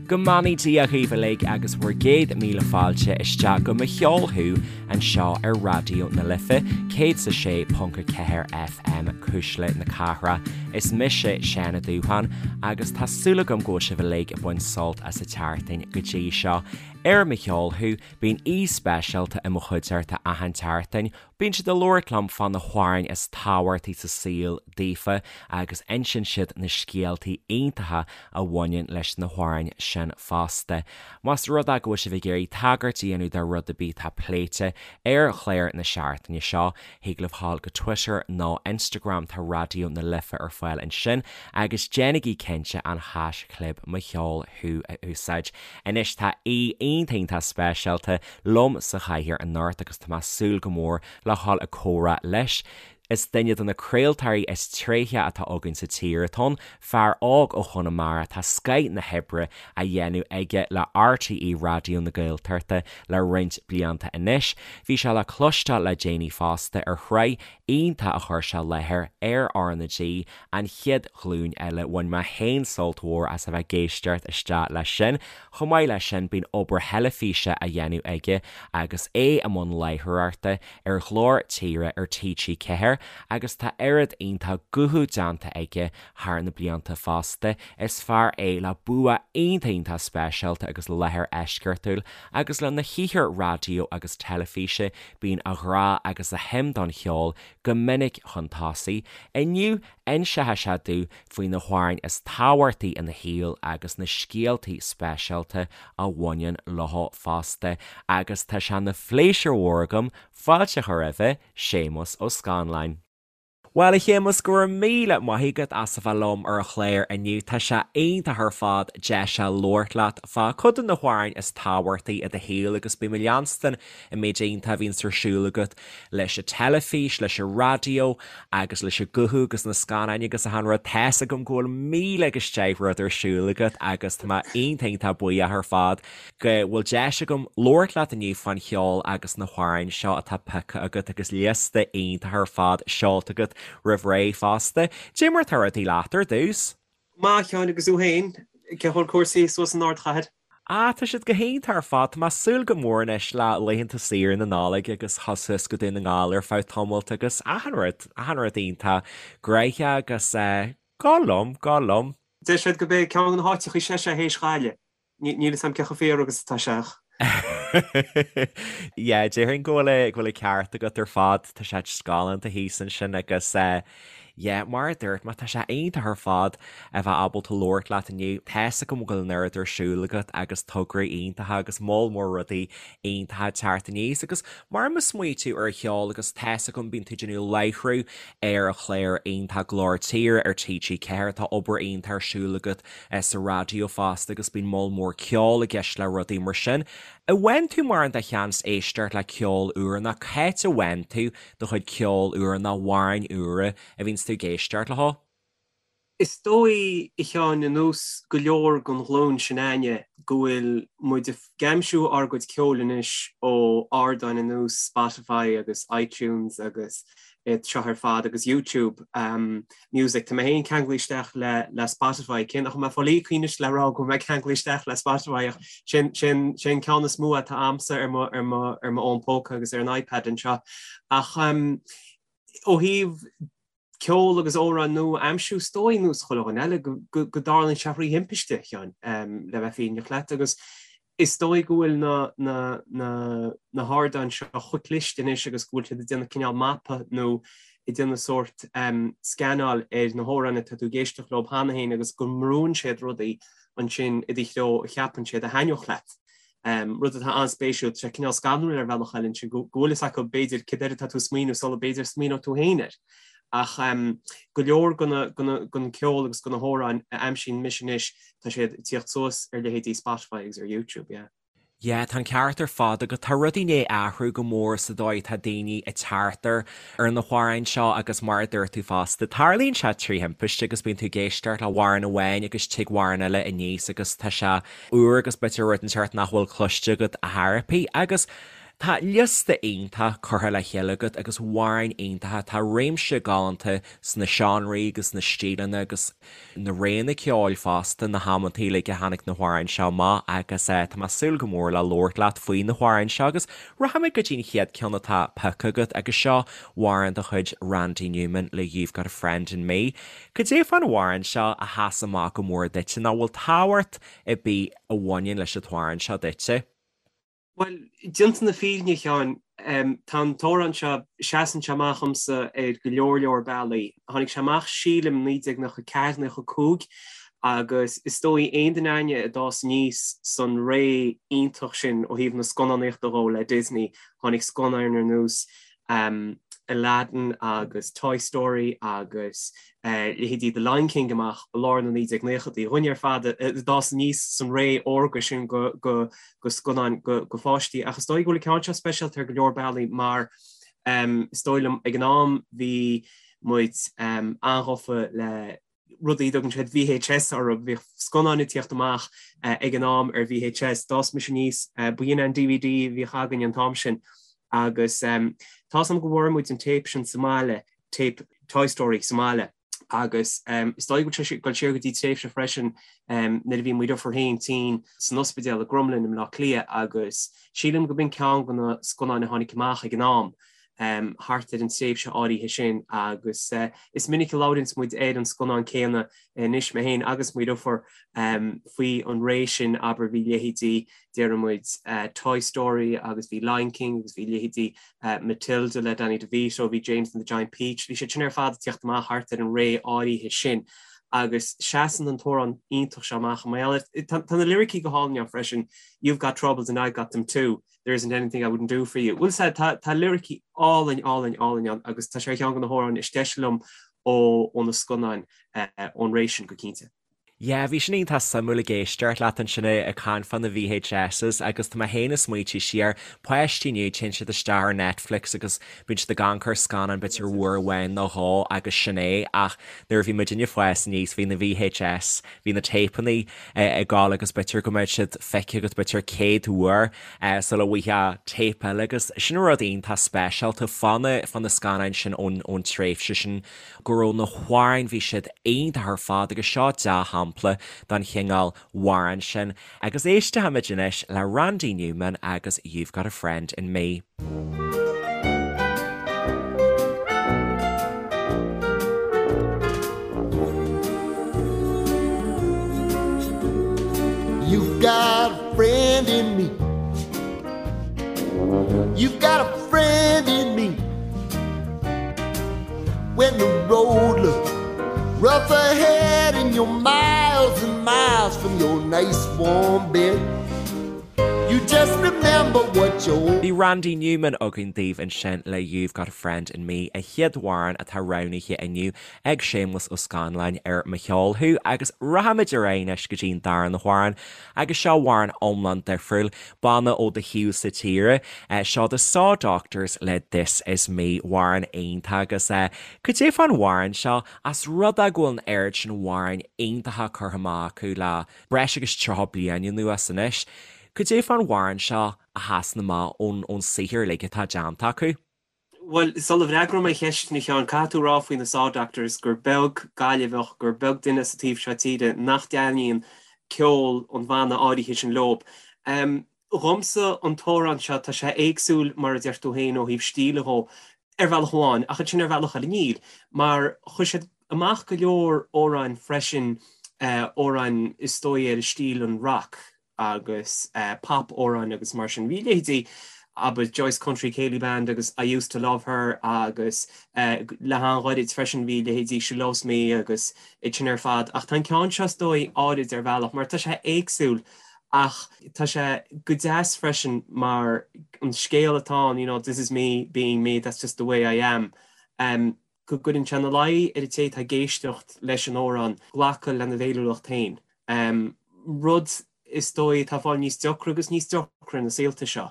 Go mbeannaí Dia dhaoibh uilig agus bhur gcéad míle fáilte isteach go Mo Cheol Thú anseo ar Raidió na Life 106.4 FM, Cuisle na Cathrach. Is mise Seán Ó Dúsháin agus tá súil agam go bhfuil sibh uilig ag baint sult as an tseachtain go dtí seo. Ar Mo Cheol Thú, bíonn aoi speisialta i mo chuideachta achan tseachtain Bíonn siad ag labhairt liom fá na hamhráin is tábhachtaí sa saol daofa agus insíonn siad na scéaltaí iontacha a bhaineann leis na hamhráin sin fosta. Más rud é go bhfuil sibh ag iarraidh tagairt a dhéanamh do rud ar bith atá pléite ar chlár na seachtaine seo, thig libh dhul go Twitter nó Instagram, tá Raidió na Life ar fáil ansin, agus déanaigí cinnte an haischlib Mo Cheol Thú a úsáid. Anois tá aoi iontach iontach speisialta liom sa chathaoir anocht agus tá mé ag súil go mór le dhul ag comhrá leis. Is duine de na craoltóirí is tréithe atá againn sa tír atá ann, fear óg ó Chonamara, tá scoith na hoibre á dhéanamh aige le RTÉ Raidió na Gaeltachta le roinnt blianta anois. Bhí sé le cloisteáil le déanaí fosta ar shraith iontach a chuir sé i láthair ar RnaG, An Chéad Ghlúin Eile. Bhain mé féin sult mhór as a bheith ag éisteacht isteach leis sin. Chomh maith leis sin, bíonn obair theilifíse á dhéanamh aige agus é i mbun láithreoireachta ar Ghlór Tíre ar TG4 agus tá oiread iontach guthú déanta aige thar na blianta fosta. Is fear é le bua iontach iontach speisialta agus láthair eisceachtúil agus lena shaothar raidió agus teilifíse bíonn a ghrá agus a shuim don cheol go minic chun tosaigh. Inniu, inseoidh sé domh faoi na hamhráin is tábhachtaí ina shaol agus na scéaltaí speisialta a bhaineann leo fosta. Agus tá sé ina phléisiúr mhór agam fáilte a chur roimhe, Séamus Ó Scanláin. Bhuel, a Shéamuis, go raibh míle maith agat as a bheith liom ar an chlár inniu. Tá sé iontach ar fad deis a labhairt leat fá cuid de na hamhráin is tábhachtaí i do shaol agus bím ag leanstan an méid iontach a bhíonns ar siúl agat leis an teilifís, leis an raidió agus leis an guthú agus na scannáin agus achan rud. Tá's agam go bhfuil míle agus deich rud ar siúl agat agus tá mé iontach iontach buíoch ar fad go bhfuil deis agam labhairt leat inniu fán cheol agus na hamhráin seo atá pioctha agat agus liosta iontach ar fad seolta agat roimh ré fosta. Cad é mar atá rudaí leat ar dtús? Maith, a Sheáin, agus thú féin? Cén chaoi a bhfuil cúrsaí suas san ardchathair? Ah, tá siad go hiontach ar fad. Tá mé ag súil go mór anois le laethanta saoire na Nollag agus dhul suas go Dún na nGall ar feadh tamaill agus achan rud, achan rud iontach gnoitheach agus eh, go liom, go liom. Deir siad gurb é ceann de na háiteacha is deise théis Ghaillimh. Níl 'fhios a'm cé chomh fíor agus atá sé ach. Yeah, déarfainn go bhfuil go bhfuil an ceart agat ar fad, tá sé just galánta thíos ansin agus eh, yeah, mar a dúirt mé, tá sé iontach ar fad a bheith ábalta labhairt leat inniu. Tá's agam go bhfuil an oiread ar siúl agat agus tograí iontacha agus moll mór rudaí iontacha ag teacht aníos agus mar má smaoiníonn tú ar cheol agus tá's agam bíonn tú ag déanamh láithriú ar an chlár iontach Glór Tíre ar TG4, tá obair iontach ar siúl agat sa raidió fosta agus bíonn moll mór ceoil i gceist le rudaí mar sin. An bhfaigheann tú mórán de sheans éisteacht le ceol úr nó cá háit a bhfaigheann tú do chuid ceoil úr nó amhráin úra a bhíonns tú ag éisteacht leo? Is dóigh, a Sheáin, ar nós go leor den ghlúin sin a'inne, go bhfuil muid ag aimsiú ár gcuid ceoil anois ó ardáin ar nós Spotify agus iTunes agus iad seo ar fad agus YouTube Music. Tá mé féin ceanglaithe isteach le le Spotify. Cé nach bhfuil mé ag fáil íoctha anois le rá go bhfuil mé ceanglaithe isteach le Spotify ach sin sin sin ceann is mó atá a'msa ar mo ar mo ar mo fhón póca agus ar an iPad anseo. Ach ó thaobh ceol agus amhráin nua a aimsiú, is dóigh, nós chuile dhuine eile, go go go dtarlaíonn sé thrí thimpiste, a Sheáin, le bheith fírinneach leat agus Is dóigh go bhfuil na na na na hardáin seo chomh cliste anois agus go bhfuil siad ag déanamh cineál mapa nó ag déanamh sórt scannáil ar na hamhráin atá tú ag éisteacht leo cheana féin agus go mbrúnn siad rudaí ansin i do threo a cheapann siad a thaitneodh leat. Rud atá an-spéisiúil, tá sé cineál scanrúil ar bhealach eile ansin go bhfuil fhios acu b'fhéidir céard air atá tú ag smaoineamh sula b'fhéidir smaoineodh tú féin air. Ach go leor den cheol agus de na hamhráin a aimsíonn mise anois, tá siad ag tíocht suas ar leithéidí Spotify agus ar YouTube, yeah. Yeah, tá an ceart ar fad agat. Tá rudaí i ndiaidh athrú go mór sa dóigh atá daoine ag teacht ar ar na hamhráin seo agus mar a dúirt tú fosta, tarlaíonn sé trí thimpiste agus bíonn tú ag éisteacht le hamhrán amháin agus tig amhrán eile aníos agus tá sé úr agus b'fhéidir rud inteacht nach bhfuil cloiste agat ar chor ar bith agus. Tá liosta iontach curtha le chéile agat agus amhráin iontacha, tá réimse galánta sna seánraí agus na stíleanna agus na réanna ceoil fosta, na hamantaí uilig a tháinig na hamhráin seo amach agus tá mé ag súil go mór le labhairt leat faoi na hamhráin seo agus rachaimid go dtí an chéad ceann atá pioctha agat agus seo amhrán de chuid Randy Newman le You've Got a Friend in Me. Cad é fán amhrán seo a sheas amach go mór duitse nó bhfuil tábhacht ar bith a bhaineann leis an t-amhrán seo duitse? Bhuel, déanta na fírinne, a Sheáin, tá an t-amhrán seo, seasann sé amach dhomsa ar go leor leor bealaí. Tháinig sé amach sílim 1994, 95 agus is dóigh aon duine againne a d'fhás aníos san ré iontach sin ó thaobh na scannánaíochta dhó le Disney, tháinig scannáin ar nós Aladdin agus Toy Story agus leithéidí The Lion King amach i lár na 1990idí. Dhuine ar fad a d'fhás aníos san ré órga sin go scannáin go pháistí. Ach is dóigh go bhfuil an ceann seo speisialta ar go leor bealaí mar is dóigh liom ag an am bhí muid an-ghafa le rudaí a dtugann siad VHS orthu. Bhíodh scannáin ag tíocht amach ag an am ar VHS. D'fhás mise aníos, b'in an DVD a bhíodh againn an t-am sin agus tá 'fhios a'm go bhfuair muid an téip sin sa mbaile, téip Toy Story sa mbaile agus is dóigh go bhfuil sé ag dul siar go dtí tréimhse freisin nuair a bhí mo dheirfiúr féin tinn san ospidéal i gCromghlinn i mBleá Cliath agus sílim go b'in ceann de na scannáin a tháinig amach ag an am. thart ar an tréimhse áirithe sin agus is minic a labhraíonns muid ar an scannán céanna anois, mé féin agus mo dheirfiúr, faoi an ré sin, abair, bhí leithéidí, déarfaidh muid, Toy Story agus bhí Lion King agus bhí leithéidí Matilda le Danny DeVito, bhí James and the Giant Peach, bhí siad sin ar fad ag tíocht amach thart ar an ré áirithe sin agus seasann an t-amhrán iontach seo amach. Tá na liricí go hálainn ann freisin, You've got troubles and I've got them too. There isn't anything I wouldn't do for you. Bhuel sea, tá tá liricí álainn, álainn, álainn ann agus tá sé ar cheann de na hamhráin is deise liom ó ó na scannáin ón ré sin go cinnte. Yeah, bhí sin iontach suimiúil ag éisteacht leat ansin ag caint fá na VHSs agus tá mé féin ag smaointiú siar, páistí inniu, téann siad isteach ar Netflix agus bíonn siad ag amharc ar scannán b'fhéidir uair amháin nó dhó agus sin é ach nuair a bhí muidinne ag fás aníos bhí na VHS, bhí na téipeanna ag gabháil agus b'fhéidir go mbeadh siad feicthe agat b'fhéidir 100 uair sula bhfaighfeá téip eile agus sin rud iontach speisialta fá na fá na scannáin sin ón ón tréimhse sin go raibh na hamhráin bhí siad iontach ar fad agus seo dea-shampla den chineál amhráin sin agus éistfimid anois le Randy Newman agus You've Got a Friend in Me. You've got a friend in me. You've got a friend in me. When the road looks rough ahead and you're miles and miles from your nice warm bed. You just remember what your Bhí Randy Newman againn daoibh ansin le You've Got a Friend in Me, an chéad amhrán atá roghnaithe inniu ag Séamus Ó Scanláin ar Mo Cheol Thú agus rachaimid ar aghaidh anois go dtí an darna hamhrán agus seo amhrán iomlán difriúil, banna ó do thaobhsa tíre, seo The Saw Doctors le This Is Me, amhrán iontach agus cad é fán amhrán seo as rud é go bhfuil an oiread sin amhráin iontacha curtha amach acu le breis agus 30 bliain anuas anois. Cad é fán amhrán seo a sheasann amach ón ón saothar uilig atá déanta acu? Bhuel, sula bhfreagróidh mé an cheist sin a Sheáin, caithfidh tú a rá faoi na Saw Doctors gur beag Gaillimheach, gur beag duine sa taobh seo tíre nach dtaitníonn ceol an bhanna áirithe sin leob. Dhomsa, an t-amhrán seo, tá sé éagsúil, mar a deir tú féin, ó thaobh stíle dhó, ar bhealach amháin, ach ansin ar bhealach eile níl, mar chuir siad amach go leor amhráin freisin, amhráin is dóigh ar stíl an rock agus pop amhráin agus mar sin. Bhí leithéidí, abair, Joyce Country Céilí Band agus I Used to Love Her agus le han-ghairid freisin bhí leithéidí She Loves Me agus iad sin ar fad. Ach tá an ceann seo is dóigh áirid ar bhealach mar tá sé éagsúil Ach tá sé go deas freisin mar an scéal atá ann, you know, this is me being me, that's just the way I am, go gcuireann sé ina luí ar an té atá ag éisteacht leis an amhrán glacadh lena bhféiniúlacht féin. Rud is dóigh atá ag fáil níos deacra agus níos deacra na saolta seo.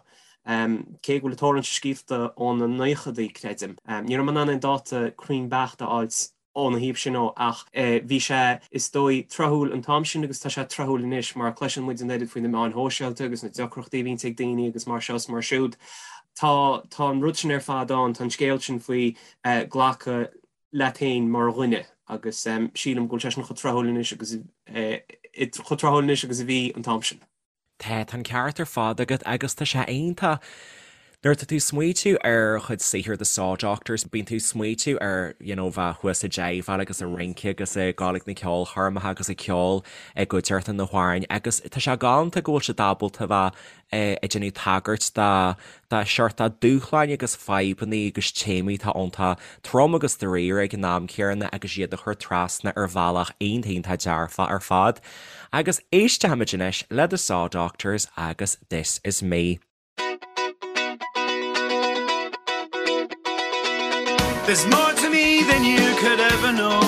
Cé go bhfuil an t-amhrán seo scríofa ó na naochadaí, creidim. Ní raibh mé in ann aon dáta cruinn beacht a fháilt óna thaobh sin dhó ach bhí sé, is dóigh, tráthúil an t-am sin agus tá sé tráthúil anois mar cloiseann muid an oiread faoi na meáin shóisialta agus na deacrachtaí a bhíonns ag daoine agus mar seo is mar siúd. Tá tá an rud sin ar fad ann, tá an scéal sin faoi glacadh leat féin mar dhuine agus sílim go bhfuil sé sin chomh tráthúil anois agus chomh tráthúil anois agus a bhí an t-am sin. Tá, tá an ceart ar fad agat agus tá sé iontach nuair atá tú ag smaoitiú ar chuid saothair The Saw Doctors, bíonn tú ag smaoitiú ar you know bheith thuas ag jiveáil agus ag rince agus ag gabháil ag na ceolchoirmeacha agus ag ceol i gcuideachta na hamhráin agus tá sé galánta go bhfuil siad ábalta bheith ag déanamh tagairt do do shórt dúshláin agus fadhbanna agus téamaí atá iontach trom agus dáiríre ag an am céanna agus iad a chur trasna ar bhealach iontach iontach dearfach ar fad. Agus éistfimid anois le The Saw Doctors agus This Is Me. There's more to me than you could ever know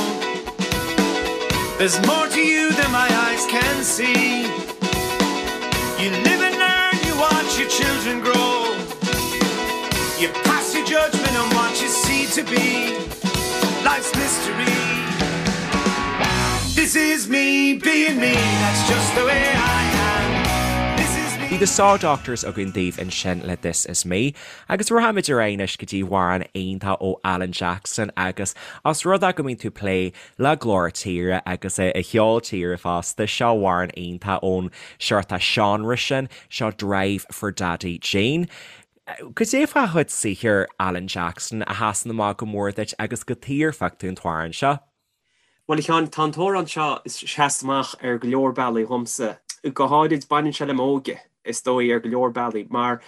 There's more to you than my eyes can see You live and learn, you watch your children grow You pass your judgment on what you see to be Life's mystery This is me being me, that's just the way I am This is me Bhí The Saw Doctors againn daoibh ansin le This Is Me Agus rachaimid ar aghaidh anois go dtí amhrán iontach ó Alan Jackson agus os rud é go mbíonn tú ag plé le glór tíre agus a cheol tíre fosta, seo amhrán iontach ón seort seánra sin, seo Drive for Daddy Gene. Cad é fá chuid saothair Alan Jackson a sheasann amach go mór duit agus cad chuige ar phioc tú an t-amhrán seo? Bhuel, a Sheáin, tá an t-amhrán seo ag seasamh amach ar go leor bealaí dhomsa. Go háirid, baineann sé le m'óige, is dóigh, ar go leor bealaí, mar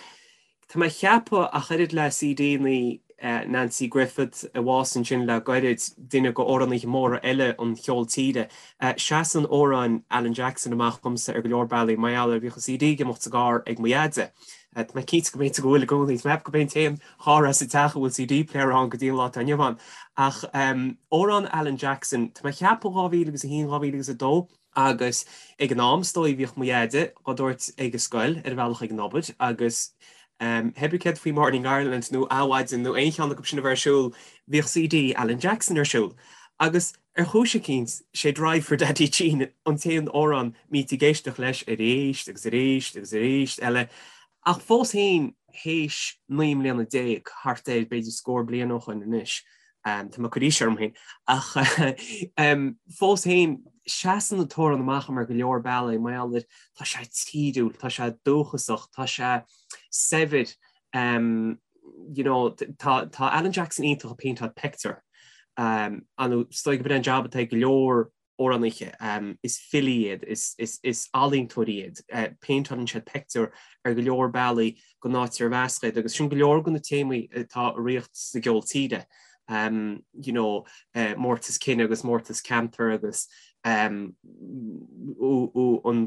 tá mé ag ceapadh, ach oiread le CD-anna Nanci Griffith a bhásaigh ansin le gairid, duine de amhránaithe móra eile an cheoil tíre, seasann amhráin Alan Jackson amach dhomsa ar go leor bealaí, mar gheall ar bhíodh an CD ag imeacht sa gcarr ag mo dheaide. Tá mé cinnte go mb'fhéidir go bhfuil i gcónaí, tá mé ag ceapadh gurb é an t-aon charr as an teach a bhfuil CD player ann go dtí an lá atá inniu ann. Ach amhrán Alan Jackson, tá mé ag ceapadh 2001, 2002, agus ag an am is dóigh bhíodh mo dheaide á dtabhairt ag an scoil ar a bhealach ag an obair agus pé ar bith céard faoi Morning Ireland nó Adhmhaidin nó aon cheann acu sin a bheith ar siúl, bhíodh CD Alan Jackson ar siúl. Agus ar chúis eicínt, sé Drive for Daddy Gene an t-aon amhrán a mbítí ag éisteacht leis arís agus arís agus arís eile. Ach fós féin, théis 19 mbliana, thart ar, b'fhéidir scór bliain ó shoin anois, tá mé ag cur aois orm féin, ach fós féin, seasann an t-amhrán amach ar go leor bealaí, mar gheall ar, tá sé tíriúil, tá sé dúchasach, tá sé saibhir, you know, tá tá Alan Jackson iontach ag péinteáil pictiúr, nó is dóigh gurb é an jab atá ag go leor amhránaithe, is filí iad, is ealaíontóirí iad, péinteálann siad pictiúr ar go leor bealaí don áit ar mheasc iad agus sin go leor de na téamaí atá ag ritheacht sa gceol tíre, you know, mórtas cine agus mórtas ceantair agus an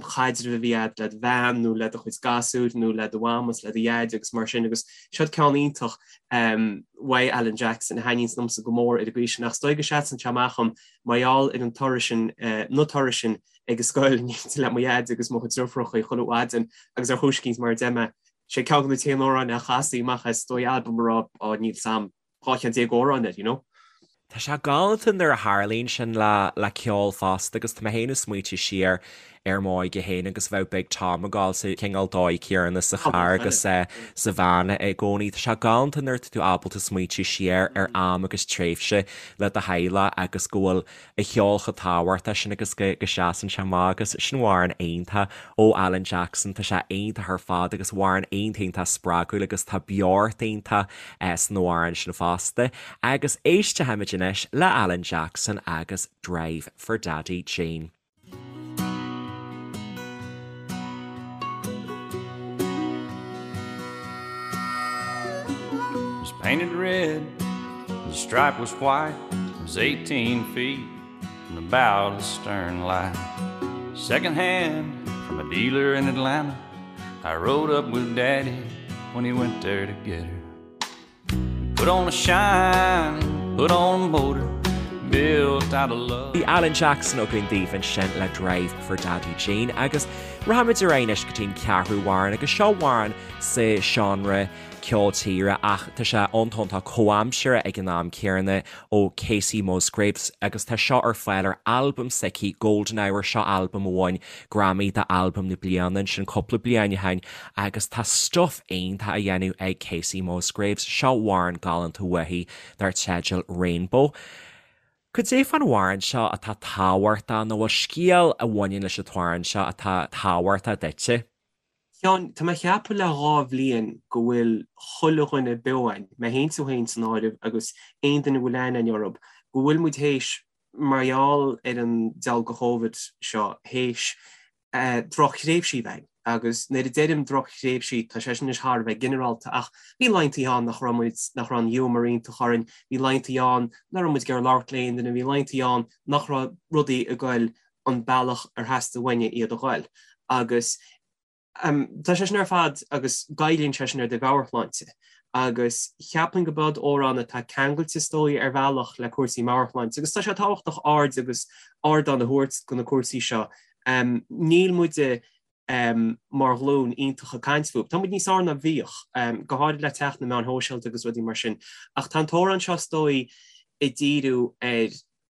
chaidreamh a bhí agat le do bhean nó le do chuid gasúir nó le do mham is le do dhaid agus mar sin agus seo ceann iontach uaidh Alan Jackson a thaitníonns liomsa go mór ar an gcaoi sin ach is dóigh go seasann sé amach dhom Mar gheall ar an turas sin, na turais sin ag an scoil in éindí le mo dhaid agus mo chuid deirfiúracha chuile mhaidin agus ar chúis eicínt mar a deir mé, sé ceann de na t-aon amhráin a chastaí amach as is dóigh albam a raibh, á níl 's a'm, 12 cheann amhrán air, you know. Tá sé galánta nuair a tharlaíonn sin le le ceol fosta agus tá mé féin ag smaoitiú siar ar m'óige féin agus bheadh Big Tom ag gabháil sa chineál dóigh céanna sa charr agus sa veain i gcónaí. Tá sé galánta nuair atá tú ábalta smaoitiú siar ar am agus tréimhse le do theaghlach agus go bhfuil an ceol chomh tábhachtach sin agus go seasann sé amach agus sin amhrán iontach ó Alan Jackson, tá sé iontach ar fad agus amhrán iontach iontach spreagúil agus tá beocht iontach san amhrán sin fosta. Agus éistfimid anois le Alan Jackson agus Drive for Daddy Gene. Was painted red, the stripe was white, it was 18 feet from the bow to the stern light. Second hand from a dealer in Atlanta, I rode up with Daddy when he went there to get her. Put on a shine, put on a motor, built out of love. Bhí Alan Jackson againn daoibh ansin le Drive for Daddy Gene agus rachaimid ar aghaidh anois go dtí an ceathrú amhrán agus seo amhrán sa seánra. ceol tíre ach tá sé iontach comhaimseartha ag an am céanna ó Kacey Musgraves agus tá seo ar fáil ar albam s'aici Golden Hour, seo albam a bhain Grammy d'albam na bliana ansin cúpla bliain ó shin agus tá stuif iontach á dhéanamh ag Kacey Musgraves, seo amhrán galánta uaithi dar teideal Rainbow. Cad é fán amhrán seo atá tábhachtach nó bhfuil scéal a bhaineann leis an t-amhrán seo atá tábhachtach duitse? Sheáin, tá mé ag ceapadh le dha bhliain go bhfuil chuile dhuine beo againn, mé fhéin tú fhéin san áireamh agus aon duine a bhfuil aithne againn orthub, go bhfuil muid théis, mar gheall ar an diabhal de Chóivid seo, théis drochthréimhsí a bheith againn. Agus nuair a deirim drochthréimhsí, tá sé sin anois thar a bheith ginearálta, ach bhí laethantaí ann nach raibh muid, nach raibh an ghiúmar iontach orainn, bhí laethantaí ann nach raibh muid ag iarraidh labhairt le aon duine, bhí laethantaí ann nach raibh rudaí ag goil an bealach ar theastaigh uainne iad a ghoil. Agus tá sé sin ar fad agus goilleann sé sin ar do mheabhairshláinte. Agus cheapfainn go b'iod amhrán atá ceangailte is dóigh ar bhealach le cúrsaí meabhairshláinte agus tá sé tábhachtach aird agus ardán a thabhairt do na cúrsaí seo. Níl muide mar ghlúin iontach ag caint fúthu. Tá muid níos fearr ná bhíodh, go háirid le teacht na meáin shóisialta agus rudaí mar sin. Ach tá an t-amhrán seo is dóigh ag díriú ar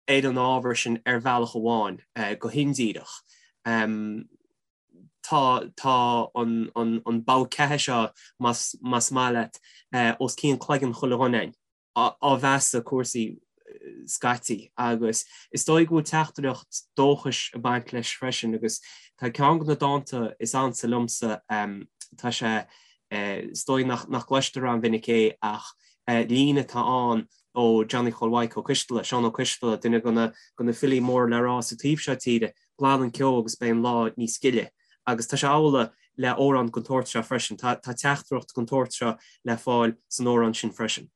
ar an ábhar sin ar bhealach amháin, go hindíreach. Tá tá an an an bogha ceatha seo, más más maith leat, os cionn cloigeann chuile dhuine againn, á mheasadh cúrsaí scaití agus is dóigh go bhfuil teachtaireacht dóchais ag baint leis freisin agus tá ceann de na dánta is ansa liomsa, tá sé, is dóigh nach nach gcloistear an-mhinic é ach líne atá ann ó Johnny Chóil Mhaidhc Ó Coisteala, Seán Ó Coisteala, duine de na filí móra le rá sa taobh seo tíre, glan an ceo agus beidh an lá níos gile. Agus tá sé amhlaidh le amhrán den tsórt seo freisin. Tá teachtaireacht den tsórt seo le fáil san amhrán sin freisin.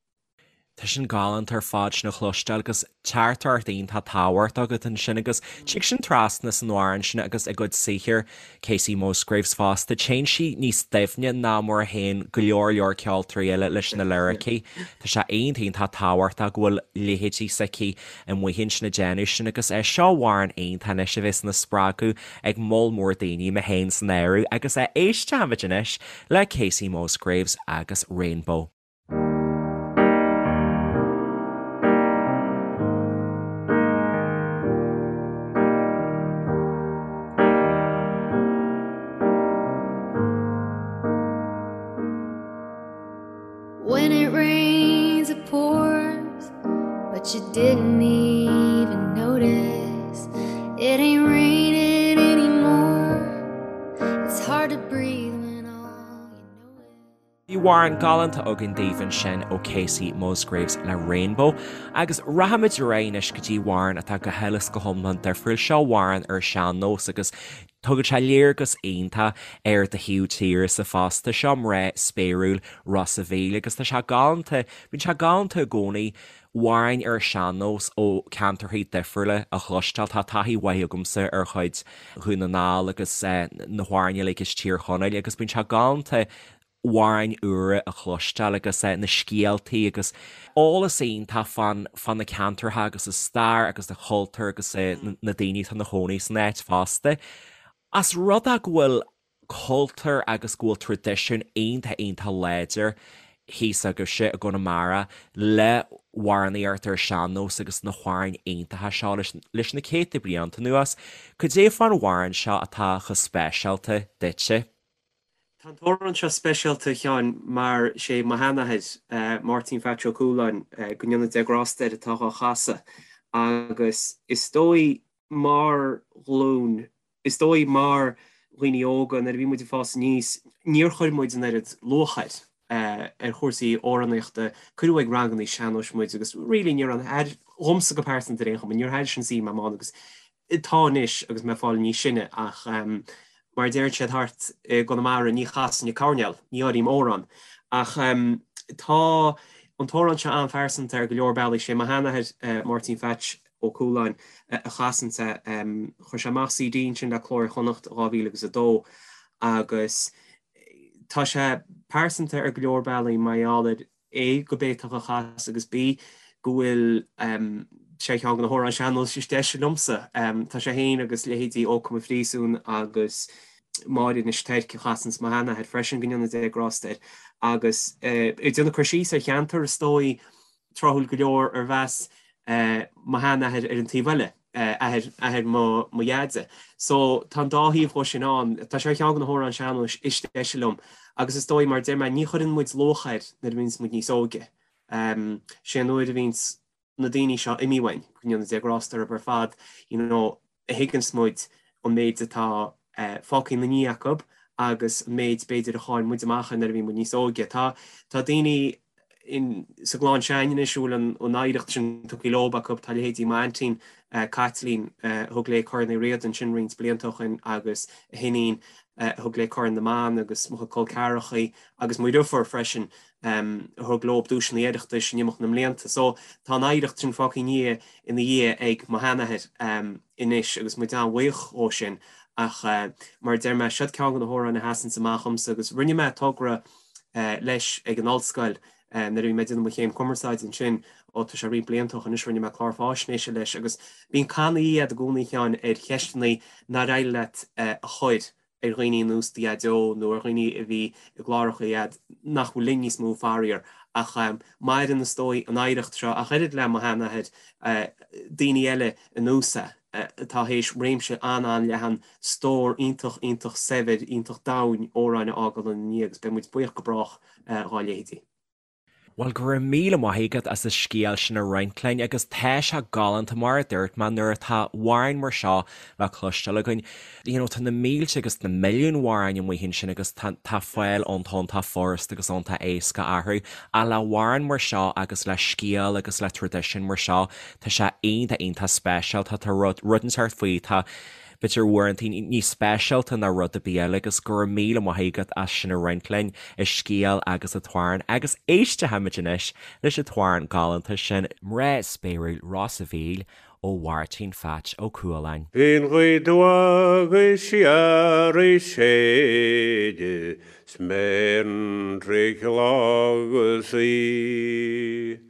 Tá sin galánta ar fad sin a chloisteáil agus teachtaireacht iontach tábhachtach agat ansin agus tig sin trasna san amhrán sin agus i gcuid saothair Kacey Musgraves fosta. Téann sí níos doimhne ná mar a théann go leor leor ceoltóirí eile leis na liricí. Tá sé iontach iontach tábhachtach go bhfuil leithéidí s'aici amuigh ansin ag déanamh sin agus é seo amhrán iontach anois a bheas ina spreagadh ag moll mór daoine, mé féin san áireamh, agus éistfimid anois le Kacey Musgraves agus Rainbow. When it rains it pours But you didn't even notice It ain't raining anymore It's hard to breathe when all you know is Bhí amhrán galánta againn daoibh ansin ó Kacey Musgraves le Rainbow agus rachaimid ar aghaidh anois go dtí amhrán atá go huile is go hiomlán difriúil. Seo amhrán ar sean-nós agus tugann sé léargas iontach ar do thaobh tíre-sa fosta. Seo Mná Spéiriúil Ros a' Mhíl agus tá sé galánta, bíonn sé galánta i gcónaí amhráin ar sean-nós ó ceantarthaí difriúla a chloisteáil. Tá taithí mhaith agamsa ar chuid Dhún na nGall agus na hamhráin uilig as Tír Chonaill agus bíonn sé galánta amhráin úra a chloisteáil agus na scéaltaí agus eolas iontach fán fá na ceantartha agus a stair agus a chultúr agus na daoine atá ina chónaí san áit fosta. As rud é go bhfuil cultúr agus go bhfuil traidisiún iontach iontach láidir thíos agaibhse i gConamara le hamhránaíocht ar sean-nós agus na hamhráin iontacha seo leis na céadta blianta anuas. Cad é fán amhrán seo atá chomh speisialta duitse? Tá an t-amhrán seo speisialta, a Sheáin, mar sé mo sheanathair, Máirtín Phatch Ó Cualáin, go ndéana Dia grásta air, atá dhá chasadh agus is dóigh mar ghlúin, is dóigh mar dhaoine óga nuair a bhí muid ag fás aníos, níor chuir muid an oiread luach air, ar chúrsaí amhránaíochta. Cuireadh ag rangannaí sean-nóis muid agus really ní raibh an, dhomsa go pearsanta ar aon chuma, níor thaitin sin suim agam agus Tá anois agus mé ag fáil níos sine ach mar a deireann siad thart i gConamara ní chasainn an coirnéal, ní áirím amhrán. Ach tá an t-amhrán seo an-phearsanta ar go leor bealaí. Sé mo sheanathair, Máirtín Phatch Ó Cualáin, a chasann é. Chuir sé amach CD ansin le Cló Iar-Chonnacht i 2002 agus tá sé pearsanta ar go leor bealaí mar gheall ar A, gurb é atá á chasadh agus B, go bhfuil sé ar cheann de na hamhráin sean-nóis is deise liomsa. Tá sé féin agus leithéidí Ó Come an Phríosúin agus. Máire Inis Toirc a chasanns mo sheanathair freisin, go ndéana Dé grásta air, agus ag déanamh cur síos ar cheantar is dóigh tráthúil go leor arbh as mo sheanathair ar an taobh eile, athair, athair mo, mo dheaide. So tá an dá thaobh dhó sin ann. Tá sé ar cheann de na hamhráin sean-nóis is deise liom agus is dóigh mar a deir mé ní chuireann muid luach air nuair a bhíonns muid níos óige. Sé an uair a bhíonns na daoine seo imithe uainn, go ndéana Dé grásta orthu ar fad, you know, a thuigeanns muid an méid atá fágtha ina ndiaidh acu agus an méid b'fhéidir a chaill muid amach air nuair a bhí muid níos óige. Tá tá daoine in sa gclann s'againne anois a bhfuil an an oidhreacht sin tugtha leob acu, tá leithéidí m'aintín Caitlín a thug léi Corn Uí Riada ansin roinnt blianta ó shin agus a hiníon a thug léi Corn na mBan agus mo chuid col ceathrachaí agus mo dheirfiúr freisin a thug leob duaiseanna Oireachtais in imeacht na mblianta. So tá an oidhreacht sin fágtha ina dhiaidh ag mo sheanathair anois agus muid an-bhuíoch dhó sin ach mar a deir mé, siod ceann de na hamhráin a sheasanns amach dhomsa agus rinne mé togra leis ag an ollscoil nuair a bhí mé ag déanamh mo chéim cumarsáide ansin, ó tá sé roinnt blianta ó shin anois, rinne mé clár fáisnéise leis agus bíonn cannaí agat i gcónaí a Sheáin ar cheisteanna nár éirigh leat a chur ar dhaoine ar nós do Dhaideo nó ar dhaoine a bhí i gcláracha agat nach bhfuil linn níos mó, faraor. Ach maireann, is dóigh, an oidhreacht seo, ach oiread le mo sheanathair, daoine eile ar nós é, atá théis réimse an-an-leathan, stór iontach, iontach saibhir, iontach domhain amhráin a fhágáil ina ndiaidh agus beidh muid buíoch go brách dhá leithéidí. Bhuel, go raibh míle maith agat as an scéal sin a roinnt linn agus tá sé galánta mar a dúirt mé nuair atá amhráin mar seo le cloisteáil againn. You know, tá na mílte agus na milliúin amhráin amuigh ansin agus tá tá fáil iontach iontach furasta agus iontach éasca orthu ach le amhrán mar seo agus le scéal agus le traidisiún mar seo tá sé iontach iontach speisialta tá rud rud inteacht faoi tá b'fhéidir uaireanta níos speisialta ná rud ar bith eile agus go raibh míle maith agat as sin a roinnt linn, an scéal agus an t-amhrán agus éistfimid anois leis an t-amhrán galánta sin, Mná Spéiriúil Ros a' Mhíl ó Mháirtín Pheaits Ó Cualáin. Bhí an ghaoth agus siar ag séideadh 's mé ar an traidhfil agus í.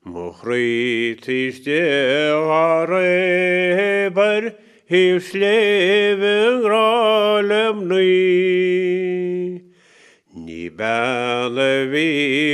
Mo chroí taobh istigh dhá réab ar thaobh sléibhe i ngrá le mnaoi. Ní bean a bhí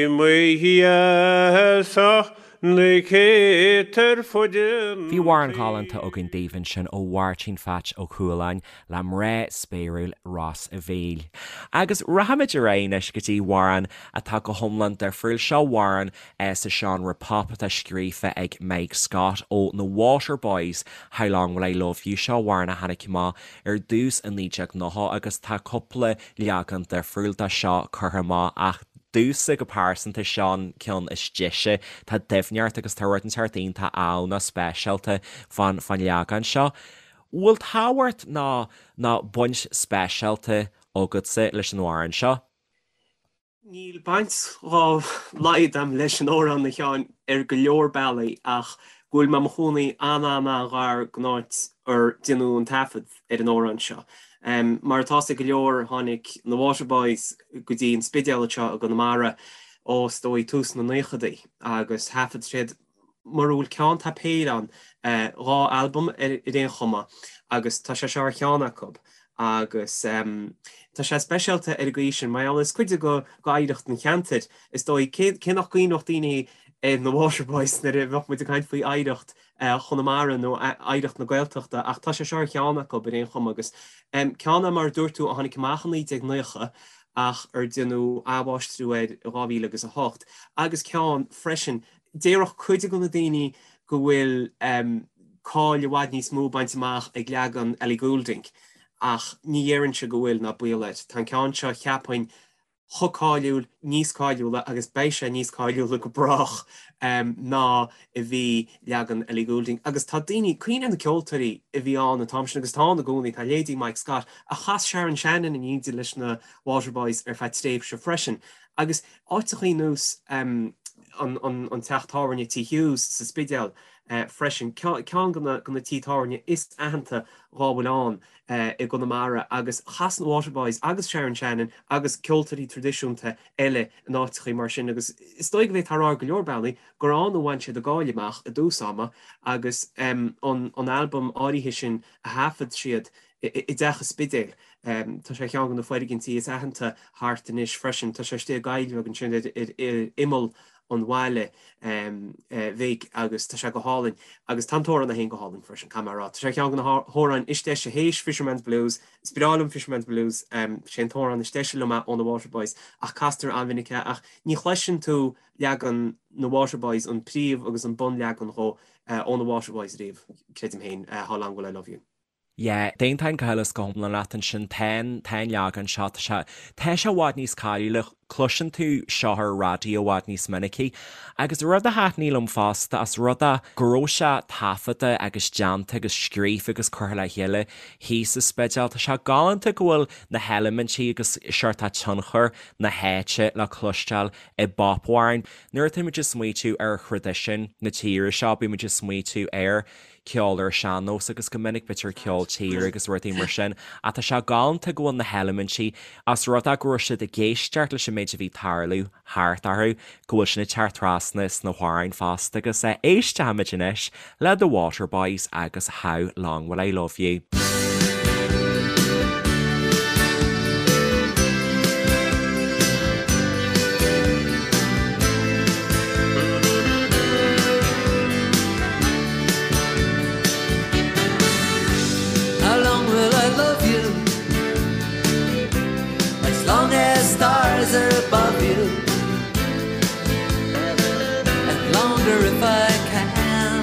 i mo dheas ach na céadta ar fud an Bhí amhrán galánta againn daoibh ansin ó Mháirtín Pheaits Ó Cualáin le Mná Spéiriúil Ros a' Mhíl. Agus rachaimid ar aghaidh anois go dtí amhrán atá go hiomlán difriúil. Seo amhrán sa seánra pop atá scríofa ag Mike Scott ó na Waterboys, How Long Will I Love You. Seo amhrán a tháinig amach ar dtús i 1990 agus tá cúpla leagan difriúil de seo curtha amach ach domhsa go pearsanta seo an ceann is deise. Tá doimhneacht agus tá rud inteacht iontach ann speisialta fán leagan seo. Bhfuil tábhacht ná ná baint speisialta agatsa leis an amhrán seo? Níl baint dhá laghad agam leis an amhrán, a Sheáin, ar go leor bealaí ach go bhfuil mé i mo chónaí an-an-an-ghar don áit ar déanadh an taifead ar an amhrán seo. Mar atá 'fhios ag go leor tháinig na Waterboys go dtí an Spidéal anseo i gConamara ó is dóigh tús na naochadaí agus thaifead siad mura bhfuil ceann tá péire ann, 2 albam ar aon chuma agus tá sé seo ar cheann acu agus tá sé speisialta ar an gcaoi sin mar gheall is cuid de d'oidhreacht an cheantair is dóigh. Cé nach gcuimhneodh daoine ar na Waterboys nuair a bheadh muid ag caint faoi oidhreacht Chonamara nó oidhreacht na Gaeltachta ach tá sé seo ar cheann acu ar aon chuma agus ceann é mar a dúirt tú a tháinig amach i 1990 ach ar déanadh athmháistriú air i 2008 agus ceann freisin Déarfadh cuid de na daoine go bhfuil cáil i bhfad níos mó bainte amach ag leagan Ellie Goulding, ach ní dhéarfainnse go bhfuil, ná baol air. Tá an ceann seo, cheapfainn, chomh cáiliúil, níos cáiliúla, agus beidh sé níos cáiliúla go brách, ná a bhí leagan Ellie Goulding. Agus tá daoine, cuimhnigh ar na ceoltóirí a bhí ann an t-am sin, agus atá ann i gcónaí, tá leithéidí Mike Scott, ach chas Sharon Shannon in éindí leis na Waterboys ar feadh tréimhse freisin. Agus áiteachaí ar nós an teach tábhairne Tí Hughes sa Spidéal freisin, ceann de na tithe tábhairne is aitheanta dhá bhfuil ann i gConamara agus chas na Waterboys agus Sharon Shannon agus ceoltóirí traidisiúnta eile in áiteachaí mar sin agus is dóigh go bhféadfá a rá ar go leor bealaí gur ann a bhain siad a gcáil amach i dtús ama agus an albam áirithe sin a thaifead siad i dteach an Spidéil. Tá sé ar cheann de na foirgintí is aitheanta thart anois freisin. Tá sé istigh i gcoill bheag ansin ar imeall an bhaile bhig agus tá sé go hálainn. Agus tá an t-amhrán é féin go hálainn freisin, caithfidh mé a rá. Tá sé ar cheann de na hamhráin is deise théis Fisherman's Blues. Is breá liom Fisherman's Blues. Sé an t-amhrán is deise liom é ó na Waterboys ach castar an-mhinic é ach ní chloiseann tú leagan na Waterboys, an príomh agus an bunleagan dhó ó na Waterboys riamh, creidim féin, How Long Will I Love You. Yeah, d'aontóinn go huile is go hiomlán leat ansin. Tá an, tá an leagan seo, tá sé, tá sé i bhfad níos cáiliúla, cloiseann tú seo ar an raidió i bhfad níos minicí. Agus rud a thaitnigh liom fosta, os rud é go raibh sé taifeadta agus déanta agus scríofa agus curtha le chéile thíos sa Spidéal, tá sé galánta go bhfuil na heilimintí agus seort tionchar na háite le cloisteáil i bpopamhráin. Nuair atáimid ag smaoitiú ar thraidisiún na tíre seo, bímid ag smaoitiú ar ceol ar an sean-nós agus go minic b'fhéidir ceol tíre agus rudaí mar sin ach tá sé galánta go bhfuil na heilimintí, os rud é go raibh siad ag éisteacht leis an méid a bhí ag tarlú thart orthu, go bhfuil sin ag teacht trasna sna hamhráin fosta agus éistfimid anois le The Waterboys agus How Long Will I Love You. How long will I love you? As long as stars are above you And longer if I can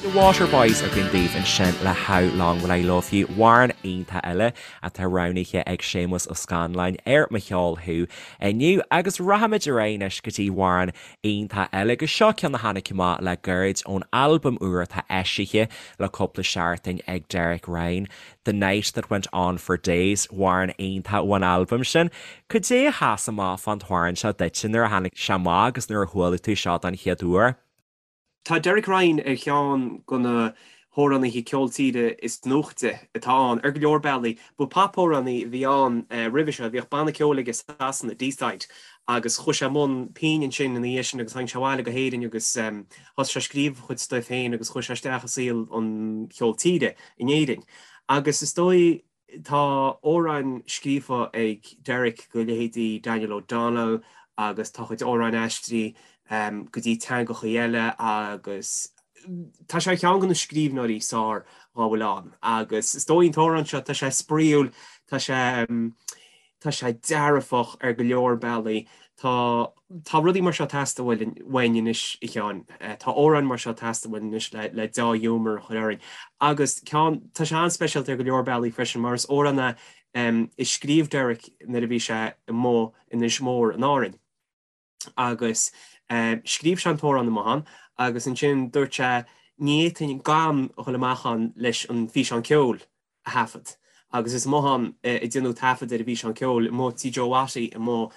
The Waterboys againn daoibh ansin le How Long Will I Love You, amhrán iontach eile atá roghnaithe ag Séamus Ó Scanláin ar Mo Cheol Thú inniu agus rachaimid ar aghaidh anois go dtí amhrán iontach eile agus seo ceann a tháinig amach le gairid ón albam úr atá eisithe le cúpla seachtain ag Derek Ryan, The Night That Went On For Days, amhrán iontach ón albam sin. Cad é a sheas amach fán t-amhrán seo duitse nuair a tháinig sé amach agus nuair a chuala tú seo don chéad uair? Tá Derek Ryan ar cheann de na hamhránaithe ceol tíre is nuachtaí atá ann, ar go leor bealaí. Ba popamhránaí a bhí ann roimhe seo, bhíodh banna ceoil aige i Sasana, Deeside, agus chuaigh sé i mbun pinn ansin ina dhiaidh sin agus tháinig sé abhaile go hÉirinn agus thosaigh sé ag scríobh a chuid stuif féin agus chuaigh sé isteach i saol an cheoil tíre in Éirinn. Agus is dóigh Tá amhráin scríofa ag Derek do leithéidí Daniel O'Donnell agus tá a chuid amhráin aistrithe go dtí teangachaí eile agus tá sé ar cheann de na scríbhneoirí is fearr dhá bhfuil ann agus is dóigh an t-amhrán seo, tá sé spraíúil, tá sé tá sé dearfach ar go leor bealaí. Tá tá rudaí mar seo ag teastáil uainn anois, a Sheáin. Tá amhráin mar seo ag teastáil uainn anois le le deá-ghiúmar a chur orainn. Agus ceann, tá sé an-speisialta ar go leor bealaí freisin mar is amhrán é a scríobh Derek nuair a bhí sé amuigh in Inis Mór in Árainn. Agus scríobh sé an t-amhrán amuigh ann agus ansin dúirt sé ní fhéadfainn gan a dhul amach ann leis an físeán ceoil. a thaifead agus is amuigh ann a déanadh taifead ar an bhfíseán ceoil, amuigh tí Joe Watty amuigh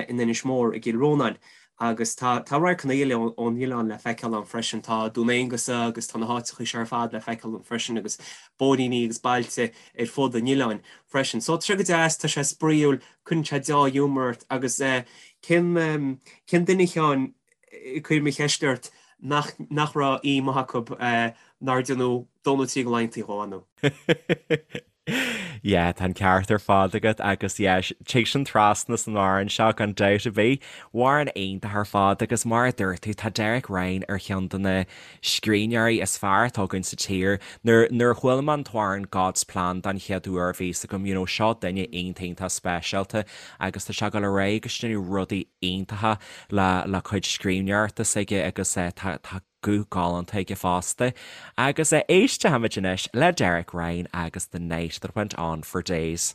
in Inis Mór i gCill Rónáin agus tá tá radharcanna eile ón oileán le feiceáil ann freisin. Tá Dún Aonghasa agus tá na háiteachaí seo ar fad le feiceáil ann freisin agus bóithríní agus bailte ar fud an oileáin freisin. So tá sé go deas, tá sé spraíúil, cuireann sé deá-ghiúmar ort agus cén cén duine a Sheáin cuir mo cheist ort nach nach raibh aoi maith acu nár déanadh dó nó trí de laethanta dhó, nó. Yeah, tá an ceart ar fad agat agus yeah, tig sin trasna san amhrán seo gan dabht ar bith. Amhrán iontach ar fad agus mar a dúirt tú, tá Derek Ryan ar cheann de na scríbhneoirí is fearr atá againn sa tír. Nuair, nuair a chuala mé an t-amhrán God's Plan don chéad uair bhí fhios agam, you know, seo duine iontach iontach speisialta agus tá sé ag dul ar aghaidh agus déanamh rudaí iontacha le, le cuid scríbhneoireachta s'aige agus eh, tá, tá guth galánta aige fosta. Agus éistfimid anois le Derek Ryan agus The Night That Went On For Days.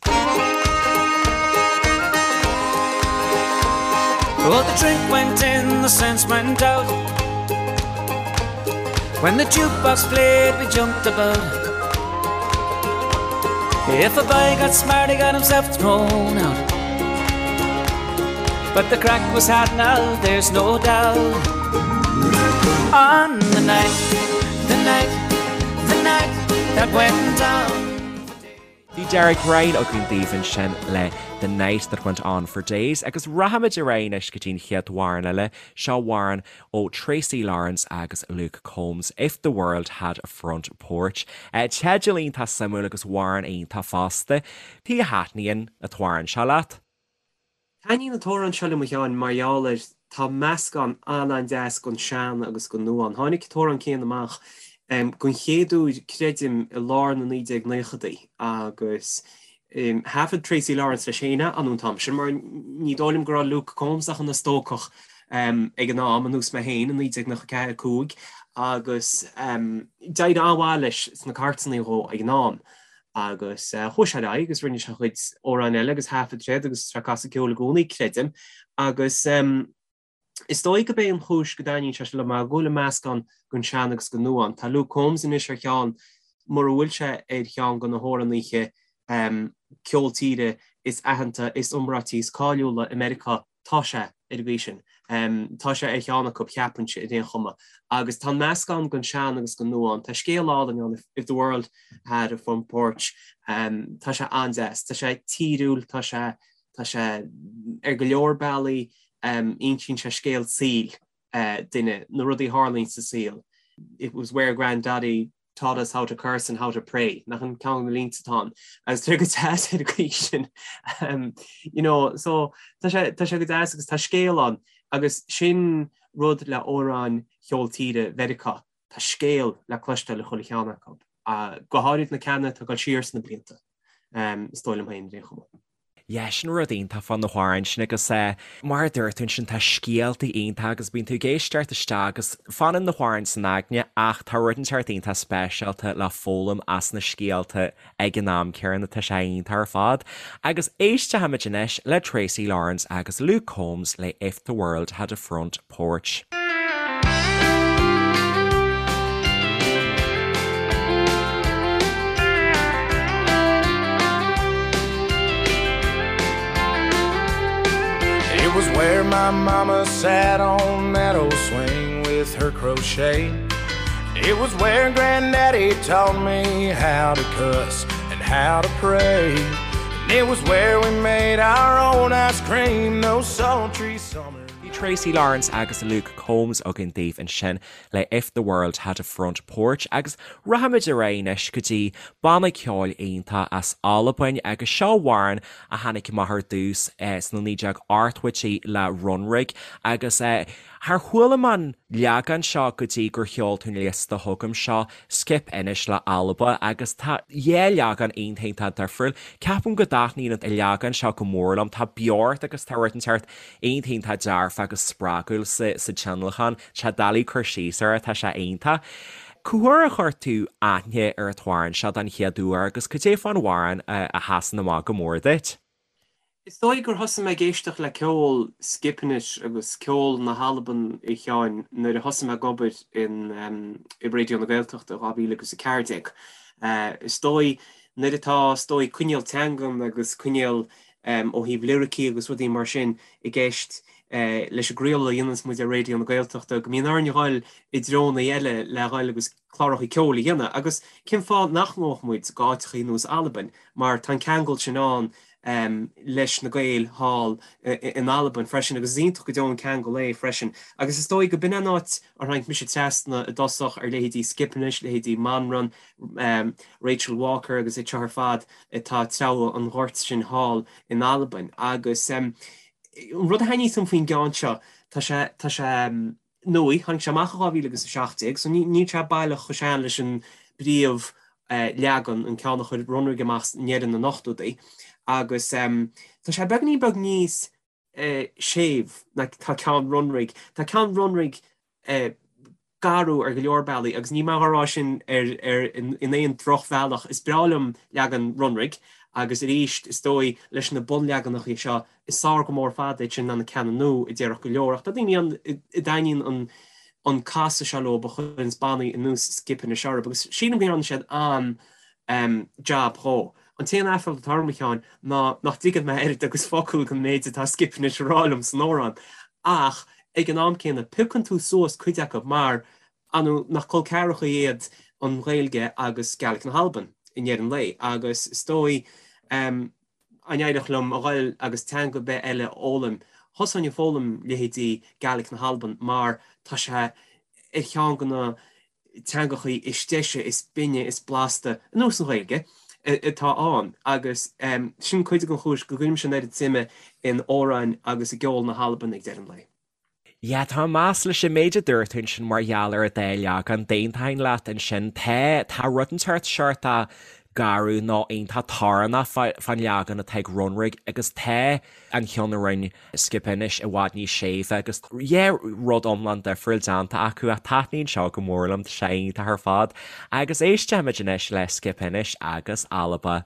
Well, the drink went in, the sense went out. When the jukebox played, we jumped about. If a boy got smart, he got himself thrown out. But the craic was had now, there's no doubt. On the night, the night, the night that went down. Bhí Derek Ryan againn daoibh ansin le The Night That Went On For Days agus rachaimid ar aghaidh anois go dtí an chéad amhrán eile. Seo amhrán ó Tracy Lawrence agus Luke Combs, If The World Had A Front Porch. Teideal iontach suimiúil agus amhrán iontach fosta. Cad chuige a thaitníonn an t-amhrán seo leat? Taitníonn an t-amhrán seo liom a Sheáin mar gheall ar tá meascán an-an-deas den sean agus den nua ann. Tháinig an t-amhrán céanna amach den chéad uair creidim i lár na 1990idí agus thaifead Tracy Lawrence leis féin é an t-am sin mar ní dóigh liom go raibh Luke Combs ach ina stócach ag an am, ar nós mé féin i 1994, 5 agus d'éirigh an-mhaith leis sna cairteanna dhó ag an am. Agus chuaigh sé ar aghaidh agus rinne sé a chuid amhráin eile agus thaifead sé iad agus tá sé ag casadh ceoil i gcónaí, creidim. Agus is dóigh gurb é an chúis go dtaitníonn sé seo liom mar go bhfuil an meascán den sean agus den nua ann. Tá Luke Combs anois ar cheann, mura bhfuil sé ar cheann de na hamhránaithe ceol tíre is aitheanta, is iomráití, is cáiliúla i Meiriceá, Tá sé, ar an gcaoi sin. Tá sé ar cheann acu, cheapfainnse, ar aon chuma. Agus tá an meascán den sean agus den nua ann. Tá scéal álainn ann, If the World Had a Front Porch. Tá sé an-deas. Tá sé tíriúil, tá sé, tá sé, ar go leor bealaí, insíonn sé scéal saoil duine, na rudaí a tharlaíonn sa saol. It was where Granddaddy taught us how to curse and how to pray, nach in ceann de na línte atá ann. Agus tá sé go deas ar an gcaoi sin. You know, so tá sé, tá sé go deas agus tá scéal ann agus sin rud le amhráin cheol tíre Mheiriceá, tá scéal le cloisteáil i chuile cheann acu. Go háirid na ceanna atá ag dul siar sna blianta, is dóigh liom féin ar aon chuma. Yeah, sin rud iontach fá na hamhráin sin agus mar a dúirt tú ansin tá scéaltaí iontach agus bíonn tú ag éisteacht isteach agus fanann na hamhráin san aigne ach tá rud inteacht iontach speisialta le foghlaim as na scéalta ag an am céanna, tá sé iontach ar fad. Agus éistfimid anois le Tracy Lawrence agus Luke Combs le If the World Had a Front Porch. It was where my mama sat on that old swing with her crochet. It was where Granddaddy taught me how to cuss and how to pray. And it was where we made our own ice cream those sultry summers. Bhí Tracy Lawrence agus Luke Combs againn daoibh ansin le If the World Had a Front Porch agus rachaimid ar aghaidh anois go dtí banna ceoil iontach as Albain agus seo amhrán a tháinig amach ar dtús sna 1980idí le Runrig agus char chuala mé an leagan seo go dtí gur sheol tú an liosta chugam seo Skipinnish le Alba agus tá dhá leagan iontach iontach difriúil. Ceapaim go dtaitníonn an leagan seo go mór liom, tá beocht agus tá rud inteacht iontach iontach dearfach agus spreagúil sa tionlacan. Tá sé doiligh cur síos air, tá sé iontach. Cá huair a chuir tú aithne ar an t-amhrán seo don chéad uair agus cad é fán amhrán a sheasann amach go mór duit? Is dóigh gur thosaigh mé ag éisteacht le ceol Skipinnish agus ceol na hAlban a Sheáin nuair a thosaigh mé ag obair in i Raidió na Gaeltachta i 2014. Is dóigh nuair atá is dóigh coinníoll teangan agus coinníoll ó thaobh liricí agus rudaí mar sin i gceist leis an gcraoladh a dhéananns muid ar Raidió na Gaeltachta, go mbíonn orainn a dhul i dtreonna eile le dhul agus cláracha ceoil a dhéanamh. Agus cén fáth nach ngabhfadh muid go áiteachaí ar nós Albain, mar tá an ceangal sin ann leis na Gaeil thall in Albain freisin, agus is iontach go deo an ceangal é freisin. Agus is dóigh go b'in an áit ar tháinig mise trasna i dtosach ar leithéidí Skipinnish, leithéidí Manran, Rachel Walker agus iad seo ar fad atá ag treabhadh an ghoirt sin thall in Albain. Agus an rud a thaitníos liom faoin gceann seo, tá sé, tá sé nua, tháinig sé amach i 2017, so níl sé baileach chomh sean leis an bpríomh leagan, an ceann a chuir Runrig amach i ndeireadh na n-ochtóidí. Agus tá sé beagáinín beag níos séimh ná tá ceann Runrig. Tá ceann Runrig garbh ar go leor bealaí agus níl mé á rá sin ar ar in aon drochbhealach. Is breá liom leagan Runrig agus arís is dóigh leis na bunleaganacha seo is fearr go mór fada iad sin ná na ceanna nua a déarfadh go leor ach tá daoine ann a dtaitníonn an an casadh seo leo a chuireanns bannaí ar nós Skipinnish orthu agus sílim go ndearna siad an jab dhó. An t-aon aiféala atá orm, a Sheáin, ná nach dtuigeann mé oiread agus focal den méid atá Skipinnish a rá liom san amhrán. Ach ag an am céanna, piocann tú suas cuid acu mar, ar ndóigh, nach col ceathracha iad an Ghaeilge agus Gaelic na hAlban. i ndeireadh an lae agus is dóigh dá n-éireodh liom a ghoil agus teanga ar bith eile a fhoghlaim, thosóinn ag foghlaim leithéidí Gaelic na hAlban mar tá sé ar cheann de na teangachaí is deise, is binne, is blasta, ar nós an Ghaeilge, atá ann agus sin cuid den chúis go gcuirimse an oiread suime in amhráin agus i gceol na hAlban ag deireadh an lae. Yeah, tá mé leis an méid a dúirt tú ansin mar gheall ar an dá leagan, d'aontóinn leat ansin. Tá, tá rud inteacht seort garbh nó iontach torannach fán leagan atá ag Runrig agus tá an ceann a rinne Skipinnish i bhfad níos séimhe agus yeah, rud iomlán difriúil déanta acu ach taitníonn seo go mór liom, tá sé iontach ar fad. Agus éistfimid anois le Skipinnish agus Alba.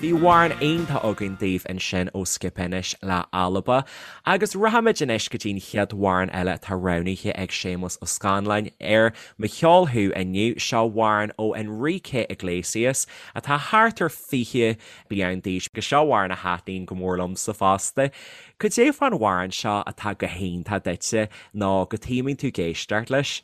Bhí amhrán iontach againn daoibh ansin ó Skipinnish le Alba agus rachaimid anois go dtí an chéad amhrán eile atá roghnaithe ag Séamus Ó Scanláin ar Mo Cheol Thú inniu. Seo amhrán ó Enrique Iglesias atá thart ar 20 bliain d'aois agus seo amhrán a thaitníonn go mór liomsa fosta. Cad é fán amhrán seo atá go hiontach duitse nó go taomaíonn tú ag éisteacht leis?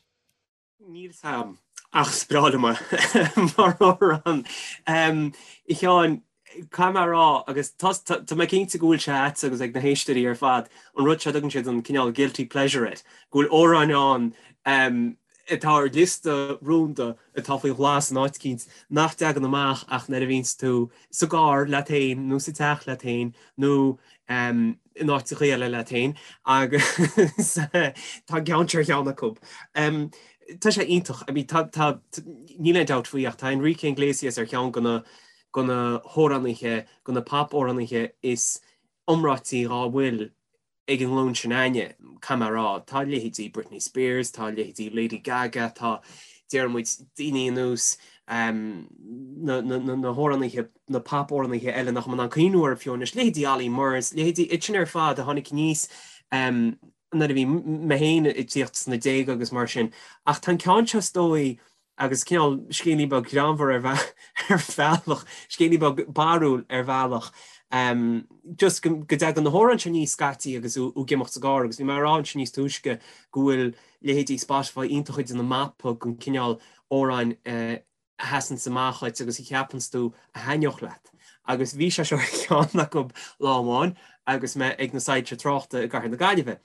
Níl 's a'm, ach is breá liom é mar amhrán. A Sheáin, caithfidh mé a rá, agus tá mé cinnte go bhfuil sé a'dsa agus ag na héisteoirí ar fad, an rud seo a dtugann siad an cineál guilty pleasure air, go bhfuil amhráin ann atá ar liosta rúnda atá faoi ghlas in áit eicínt nach dtagann amach ach nuair a bhíonns tú sa gcarr leat féin nó sa teach leat féin nó in áiteacha eile leat féin agus tá an ceann seo ar cheann acu. Tá sé iontach, I mean tá, tá, níl aon dabht faoi ach tá Enrique Iglesias ar cheann de na, de na hamhránaithe, de na pop-amhránaithe is iomráití dhá bhfuil ag an nglúin sin againne, caithfidh mé a rá. Tá leithéidí Britney Spears, tá leithéidí Lady Gaga, tá, déarfaidh muid, daoine ar nós na hamhránaithe, na pop-amhránaithe eile nach bhfuil mé in ann cuimhniú orthu fiú anois, leithéidí Olly Murs, leithéidí iad sin ar fad a tháinig aníos nuair a bhí mé féin ag tíocht sna déaga agus mar sin. Ach tá an ceann seo is dóigh agus cineál scéilín beag greannmhar ar bhealach, scéilín beag barrúil ar bhealach, just go dtagann na hamhráin seo aníos scaití agus tú ag imeacht sa gcarr agus bhí mé ag rá ansin níos túisce go bhfuil leithéidí Spotify iontach ag déanamh mapa den cineál amhráin a sheasanns amach dhuit agus a cheapanns tú a thaitneodh leat. Agus bhí sé seo ar cheann acu lá amháin agus mé ag na soilse tráchta i gcathair na Gaillimhe.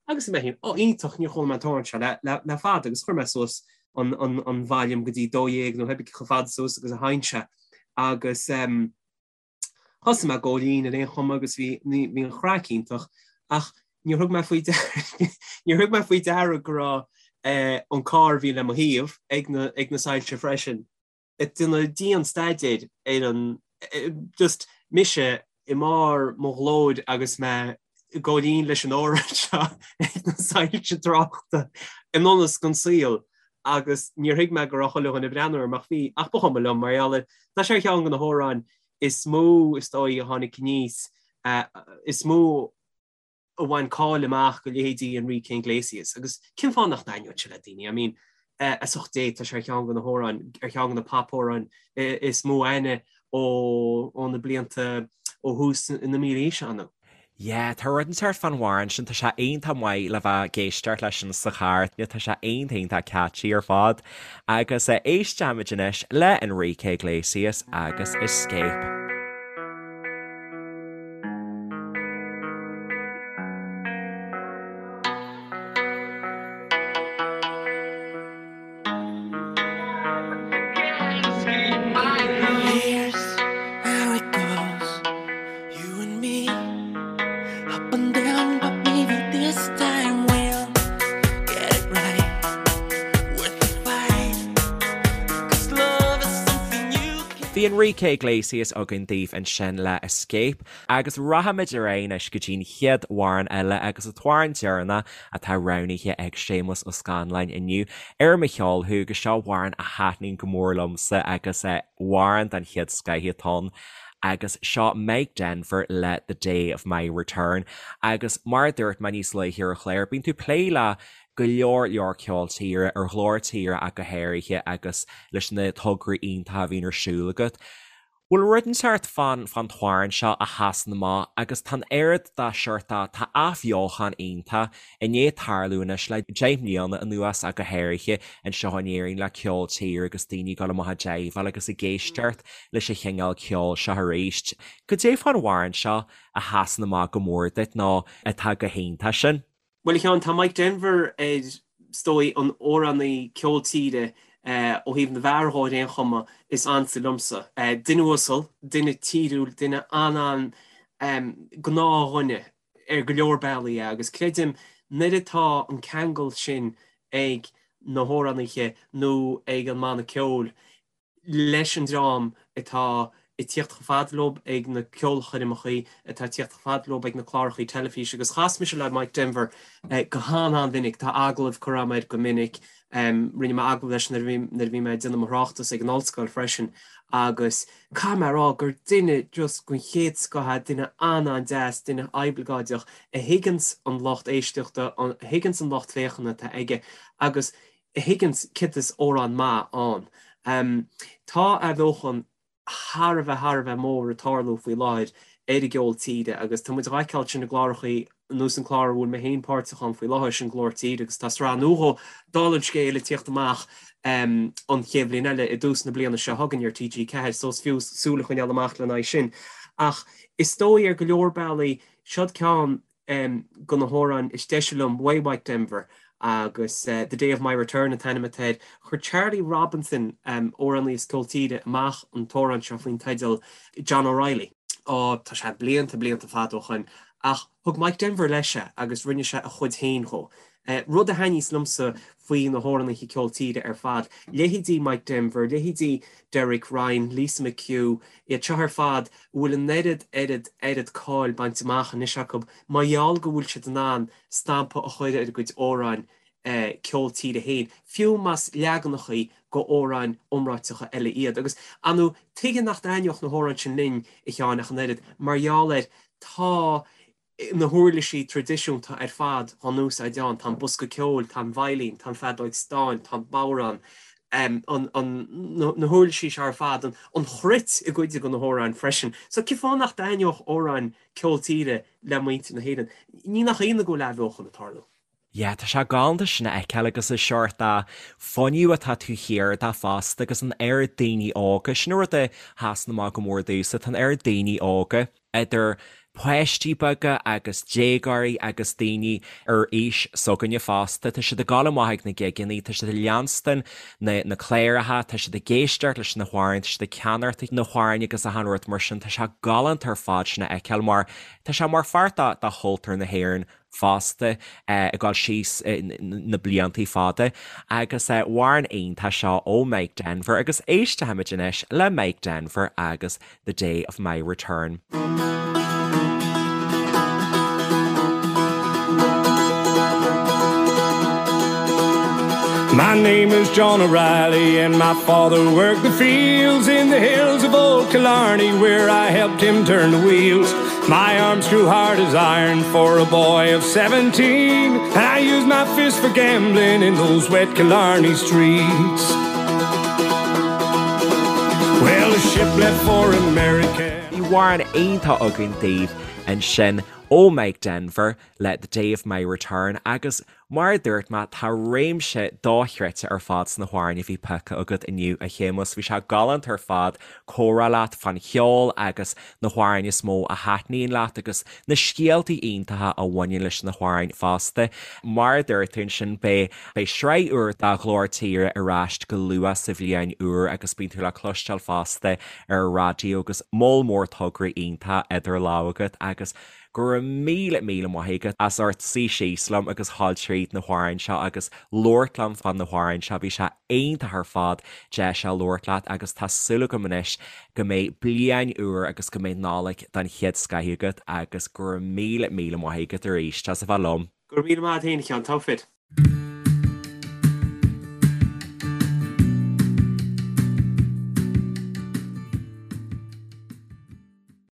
Agus mé féin, ó iontach, níor chuala mé an t-amhrán seo le fada agus chuir mé suas an an volume go dtí 12 nó pé ar bith chomh fada suas agus a théann sé agus thosaigh mé ag gabháil fhoinn ar aon chuma agus bhí bhí an chraic iontach ach níor thug mé faoi níor thug mé faoi deara go raibh an carr a bhí le mo thaobh ag na ag na soilse freisin ag déanamh dian staidéir ar an just mise i mbarr mo ghlóir agus mé ag gabháil fhoinn leis an amhrán seo ag na soilse tráchta i ndonas den saol agus níor thuig mé go raibh chuile dhuine ag breathnú orm ach bhí ach ba chuma liom mar gheall ar tá sé ar cheann de na hamhráin is mó is dóigh a tháinig aníos is mó a bhain cáil amach do leithéidí Enrique Iglesias agus cén fáth nach dtaitneodh sé le daoine? I mean, as ucht Dé, tá sé ar cheann de na hamhráin, ar cheann de na pop-amhráin is mó aithne ó ó na blianta ó thús na mílaoise ann. Yeah, tá rud inteacht fán amhrán sin, tá sé iontach maith le bheith ag éisteacht leis sin sa charr, tá sé iontach iontach catchy ar fad. Agus éistfimid anois le Enrique Iglesias agus Escape. Bhí Enrique Iglesias againn daoibh ansin le Escape agus rachaimid ar aghaidh anois go dtí'n chéad amhrán eile agus an t-amhrán deireanach atá roghnaithe ag Séamus Ó Scanláin inniu ar Mo Cheol Thú agus seo amhrán a thaitníonn go mór liomsa agus amhrán den chéad scoith atá ann. Agus seo Mike Denver le The Day of My Return. Agus mar a dúirt mé níos luaithe ar an chlár, bíonn tú ag plé le go leor leor ceol tíre, ar Ghlór Tíre ach go háirithe agus leis na tograí iontacha a bhíonn ar siúl agat. Bhfuil rud inteacht fán fán t-amhrán seo a sheasann amach agus tá an oiread dá seort de, tá athbheochan iontach i ndiaidh tarlú anois le 10 mbliana anuas ach go háirithe anseo in Éirinn le ceol tíre agus daoine ag dul amach ag jaiveáil agus ag éisteacht leis an chineál ceoil seo arís. Cad é fán amhrán seo a sheasann amach go mór duit nó atá go hiontach sin? Bhuel, a Sheáin, tá Mike Denver ar, is dóigh, an amhránaí ceol tíre, ó thaobh na bhfear dhó ar aon chuma, is ansa liomsa. Duine uasal, duine tíriúil, duine an-an gnáthdhuine ar go leor bealaí é agus creidim nuair atá an ceangal sin ag na hamhránaithe nó ag an mbanna ceoil, leis an dream atá ag tíocht chomh fada leo ag na ceolchoirmeachaí, atá ag tíocht chomh fada leo ag na clárachaí teilifíse agus chas mise le Mike Denver go han-an-mhinic, tá agallaimh curtha agam air go minic, rinne mé agallamh leis nuair a bhí mé ag déanamh mo thráchtas ag an ollscoil freisin agus caithfidh mé a rá gur duine just den chéad scoth é, duine an-an-deas, duine oibleagáideach a thuigeanns an lucht éisteachta, a thuigeanns an lucht féachana atá aige agus a thuigeanns céard is amhrán maith ann. Tá athbheochan thar a bheith thar a bheith mór ag tarlú faoi láthair ar an gceol tíre agus tá muid á fheiceáil sin i gclárachaí ar nós an clár a bhfuil mé féin páirteach ann faoi láthair, sin Glór Tíre agus tá sraith nua dhó, dála an scéil, ag tíocht amach an chéad bhliain eile i dtús na bliana seo chugainn ar TG4 so is fiú súil a choinneáil amach lena aghaidh sin. Ach is dóigh ar go leor bealaí, seod ceann de na hamhráin is deise liom uaidh Mike Denver agus The Day of My Return an t-ainm atá air. Chuir Charlie Robinson, amhránaí as ceol tíre, amach an t-amhrán seo faoin teideal John O'Reilly. Ó, tá sé blianta, blianta fada ó shoin, ach thug Mike Denver leis é agus rinne sé a chuid féin dhó. Rud a thaitníos liomsa faoi na hamhránaithe ceol tíre ar fad, leithéidí Mike Denver, leithéidí Derek Ryan, Lisa McHugh, iad seo ar fad a bhfuil an oiread, oiread, oiread cáil bainte amach anois acu mar gheall go bhfuil siad in ann stampa a chur ar a gcuid amhráin ceol tíre féin, fiú más leaganachaí go amhráin iomráiteacha eile iad. Agus, ar ndóigh, tuige nach dtaitneodh na hamhráin sin linn, a Sheáin, ach an oiread, mar gheall ar, tá na huirlisí traidisiúnta ar fad á n-úsáid ann, tá an bosca ceoil, tá an veidhlín, tá an feadóig stáin, tá an bodhrán, na huirlisí seo ar fad, an chruit i gcuid de na hamhráin freisin. So cén fáth nach dtaitneodh amhráin ceol tíre le muintir na hÉireann? Ní nach ionadh go bhfuil athbheochan ag tarlú. Yeah, tá sé galánta sin a fheiceáil agus an seort de fuinneamh atá taobh thiar de fosta agus an oiread daoine óga, sin an rud a sheasann amach go mór domhsa, tá an oiread daoine óga, idir páistí beaga agus déagóirí agus daoine ar aois s'againne fosta, tá siad ag dul amach ag na gigeanna, tá siad ag leanstan na na cláracha, tá siad ag éisteacht leis na hamhráin, tá siad ag ceannacht na hamhráin agus achan rud mar sin, tá sé galánta ar fad sin a fheiceáil mar tá sé mar pháirt de chultúr na hÉireann fosta ag dul síos na bliantaí fada agus amhrán iontach seo ó Mike Denver agus éistfimid anois le Mike Denver agus The Day of My Return. My name is John O'Reilly and my father worked the fields in the hills of old Killarney where I helped him turn the wheels. My arms grew hard as iron for a boy of 17 and I used my fist for gambling in those wet Killarney streets. Well, the ship left for America. Bhí amhrán iontach againn daoibh ansin ó Mike Denver le The Day of My Return agus Mar a dúirt mé, tá réimse dochreidte ar fad sna hamhráin a bhí pioctha agat inniu, a Shéamuis. Bhí sé galánta ar fad comhrá leat fán cheol agus na hamhráin is mó a thaitníonn leat agus na scéaltaí iontacha a bhaineann leis na hamhráin fosta. Mar a dúirt tú ansin, beidh beidh sraith úr de Ghlór Tíre ar ais go luath sa bhliain úr agus bíonn tú le cloisteáil fosta ar an raidió agus moll mór tograí iontacha idir lámha agat agus Go raibh míle míle maith agat as ucht suí síos liom agus dhul tríd na hamhráin seo agus labhairt liom fá na hamhráin seo. Bhí sé iontach ar fad deis a labhairt leat agus tá súil agam anois go mbeidh bliain úr agus go mbeidh Nollaig den chéad scoith agat agus go raibh míle míle maith agat arís as a bheith liom. Go raibh míle maith agat féin a Sheáin, togha fir.